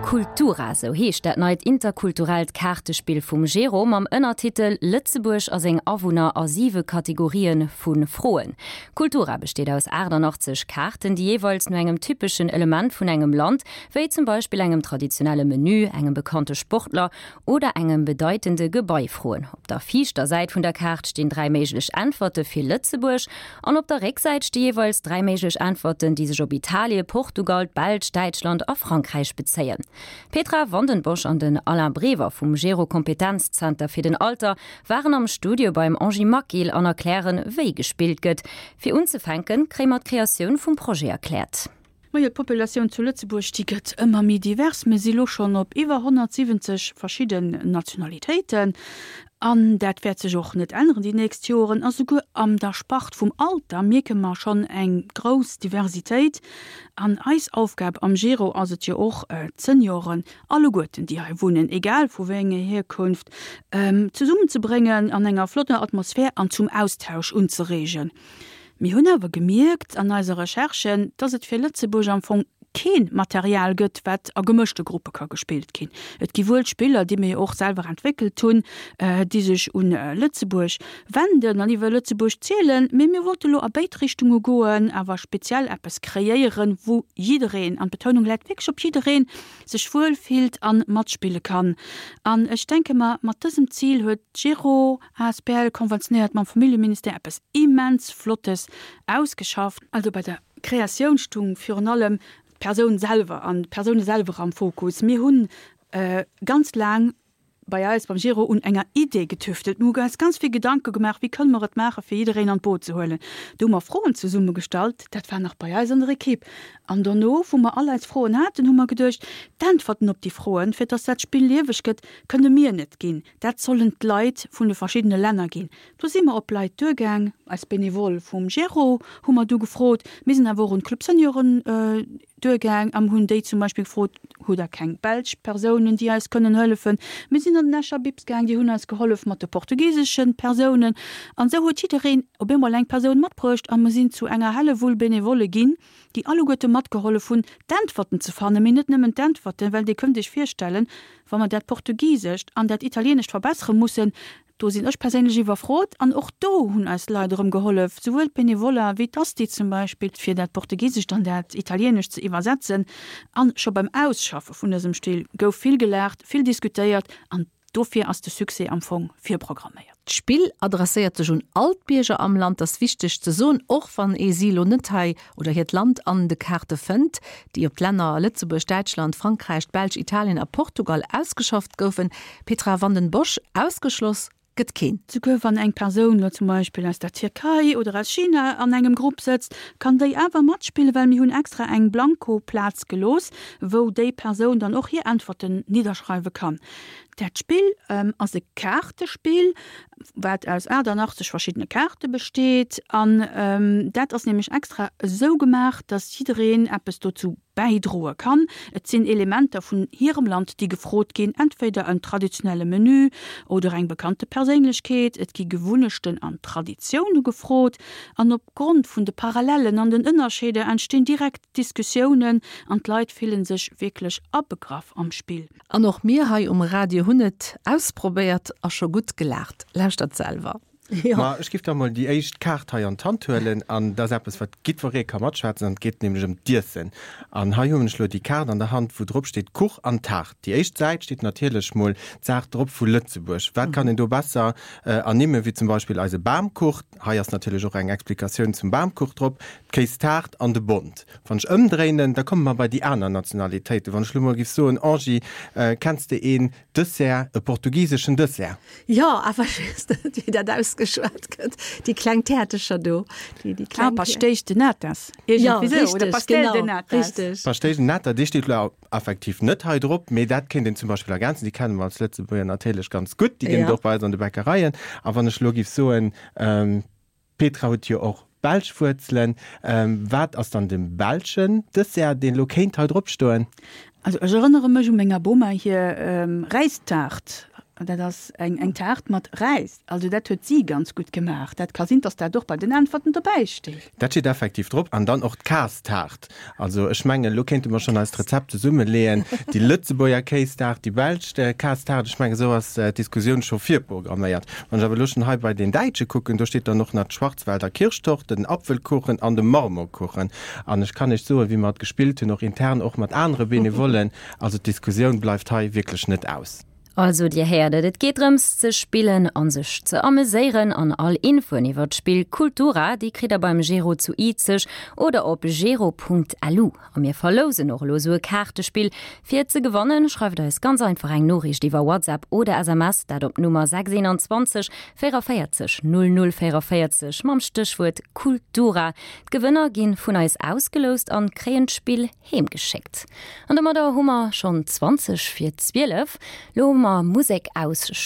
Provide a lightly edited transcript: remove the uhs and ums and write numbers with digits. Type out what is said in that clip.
Kultura, sou heescht dat neit interkulturellt Kaartespill vum Gero mam Ënnertitel Lëtzebuerg a seng Awunner a siwe Kategorië vu Froen. Kultura besteet aus 88 Kaarten, déi jeeweils no engem typeschen Element vun engem Land, wéi zum Beispill engem traditionelle Menü, engem bekannte Sportler oder engem bedeitende Gebai froen. Op der viischter Säit vun der Kaart stinn 3 méiglech Äntwerte fir Lëtzebuerg an op der Récksäit sti jeeweils 3 méiglech Äntwerten, déi sech op Italie, Portugal, d'Belsch, Däitschland a Frankräich bezéien. D'Petra Vandenbosch an den Alain Brever vum Gero Kompetenzzenter fir den Alter waren am Studio beim Angie Maquil an erklären, wéi gespillt gëtt. Fir unzefänken, kréie mer d'Kreatioun vum Projet erkläert. Majo, d'Populatioun zu Lëtzebuerg, déi gëtt ëmmer méi divers. Mir si lo schonn op iwwer 170 verschidden Nationalitéiten an dat wäert sech och net änneren déi nächst Joren. A souguer an der Spart vum Alter mierke mer schonn eng grouss Diversitéit. An eis Aufgab am Gero ass et jo och, d'Senioren alleguerten, déi hei wunnen, egal vu wéi enger Hierkunft, zesummenzebréngen an enger flotter Atmosphär an zum Austausch unzereegen. Mir hunn awer gemierkt an eiser Recherche, dass et fir Lëtzebuerg am Fong kee Material gëtt, wat a gemëschte Gruppe ka gespillt ginn. Et gi wuel Spiller, déi mir jo och selwer entwéckelt hunn, déi sech un Lëtzebuerg wenden an iwwer Lëtzebuerg zielen, mee mir wollte lo a béid Richtunge goen, awer speziell eppes kreéieren, wou jiddereen, an d'Betounung läit wierklech op jiddereen, sech wuel fillt a matspille kann. An ech denke mer, mat dësem Zil huet d'Gero asbl konventionéiert mam Familljeministère eppes immens Flottes ausgeschafft. Also bei der Kreatioun stung virun allem d'Persoun selwer an d'Persoune selwer am Fokus. Mir hunn ganz laang bei eis beim Giro un enger Idee getüftelt. Mir hu eis ganz vill Gedanke gemaach, wéi kënne mer et maachen, fir jiddereen an d'Boot ze huelen. Do hu mer Froen zesummegestallt, dat war nach bei eis an der Equipe. An dono, wou mer all eis Froen haten, hu mer geduecht, d'Äntwerten op déi Froen, fir dass dat Spill lieweg gëtt, kënne mir net ginn. Dat sollen d'Leit vun de verschiddene Länner ginn. Do si mer op Leit duergaang, eis Benevole vum Gero hu mer du gefrot. Mir sinn awer och un d'Club Senioren duergaang an hunn déi zum Beispill gefrot, Hutt der keng belsch Persounen, déi eis kënnen hëllefen? Mir sinn an den Escher Bips gaang, déi hunn eis gehollef mat de portugisesche Persounen. An esou huet jiddereen op eemol eng Persoun matbruecht a mer sinn zu enger Hellewull Benevole ginn, déi alleguerte matgehollef hunn, d'Äntwerten ze fannen. Mee net nëmmen d'Äntwerten, well Dir kënnt Iech virstellen, Wa mer dat Portugisescht an dat Italienescht verbessere mussen, do sinn ech perséinlech iwwerfrot. An och do hunn eis Leit erëm gehollef, souwuel d'Benevoller wéi d'Asti zum Beispill, fir dat Portugisescht an dat Italienescht ze iwwersetzen. A scho beim Ausschaffe vun dësem Still gouf vill gelaacht, vill diskutéiert an dofir ass de Succès am Fong virprogramméiert. D'Spill adresséiert sech un all d'Bierger am Land, ass wichteg ze soen, och wann ee si elo net hei oder hiert Land an de Kaarte fënnt, déi op d'Länner Lëtzebuerg, Däitschland, Frankräich, d'Belsch, Italien a Portugal ausgeschafft goufen. Petra Vanden Bossche, Ausgeschloss gëtt keen. Souguer wann eng Persoun elo zum Beispill aus der Tierkei oder aus China an engem Grupp sëtzt, kann déi awer matspillen, well mir hunn extra eng Blanko-Plaz gelooss, wou déi Persoun dann och hir Äntwerten nidderschreiwe kann. Dat Spill ass e Kaartespill, wat aus 88 verschiddene Kaarte besteet. An dat ass nämlech extra esou gemaach, dass jiddereen eppes dozou bäidroe kann. Et sinn Elementer vun hirem Land, déi gefrot ginn, entweder en traditionelle Menü oder eng bekannte Perséinlechkeet. Et gi Gewunnechten an Traditioune gefrot. An opgrond vun de Parallellen an den Ënnerscheeder entstinn direkt Diskussiounen an d'Leit fillen sech wierklech abegraff am Spill. An och mir hei um Radio hunn et ausprobéiert a scho gutt gelaacht. Lauschtert selwer. Ma ech giff da mol déi éischt Kaart hei an d'Hand huelen an dat ass eppes wat giddweree ka matschwätzen an et geet nämlech ëm d'Iessen. An hei hunn ech lo déi Kaart an der Hand wou drop steet Kuch an Taart. Déi éischt Säit steet natierlech mol d'Saach drop vu Lëtzebuerg. Wat kann een do besser ernimmen wéi zum Beispill eise Bamkuch. Hei ass natierlech och eng Explikatioun zum Bamkuch drop, d'Kéistaart an de Bond. Wann ech ëmdréinen, da komme mer bei déi aner Nationalitéiten. Wann ech elo mol giff soen, Angie, kenns de een Dessert, e portugiseschen Dessert? Jo, awer ech weess net, wéi dat ausgeschwat gëtt. Déi kleng Täertecher do, déi, déi kleng. Ah, Pastéis de Natas, iergendwéi esou, oder Pastel de Natas. Richteg. Pastéis de Nata, dee steet elo effektiv net hei drop, mee dat kéint een zum Beispill ergänzen. Déi kenne mer als Lëtzebuerger natierlech ganz gutt, déi ginn et och bei eis an de Bäckereien. A wann ech elo giff soen, D'Petra huet jo och belsch Wuerzelen. Wat ass dann de belschen Dessert, deen elo kéint hei drop stoen? Also ech erënnere mech u menger Boma hir Räistaart. Dat ass eng eng Taart mat Räis. Also dat huet si ganz gutt gemaach. Dat ka sinn, dass dat och bei den Äntwerten dobäi steet. Dat steet effektiv drop. An dann och d'Kaastaart. Also ech mengen, elo kéinte mer schonn eist Rezept zesummeleeën, déi Lëtzebuerger Kéistaart, déi belsch Kaastaart. Ech mengen, esou ass d'Diskussioun scho virprogramméiert. Wann ech awer elo schonn hei bei den Däitsche kucken, do steet dann och nach d'Schwarzwälder Kirschtorte, den Apfelkuchen an de Marmorkuchen. An ech kann Iech soen, wéi mer et gespillt hunn, och intern, och mat anere Benevollen, also d'Diskussioun bleift hei wierklech net aus. Also dir héiert et, et geet drëms ze spillen an sech ze ameséieren an all Infoen iwwert d'Spill Kultura, déi kritt der beim Gero zu Izeg oder op gero.lu. A mir verlousen och elo esou e Kaartespill. Fir et ze gewannen, schreift eis ganz einfach eng Noriicht iwwer WhatsApp oder SMS, dat op d'Nummer 621 44 00 44 mam Stéchwuert Kultura. D'Gewënner gi vun eis ausgeloust an kréien d'Spill heem geschéckt. An domadder hu mer schonn 20 vir 12. Lo hu mer Musek aus.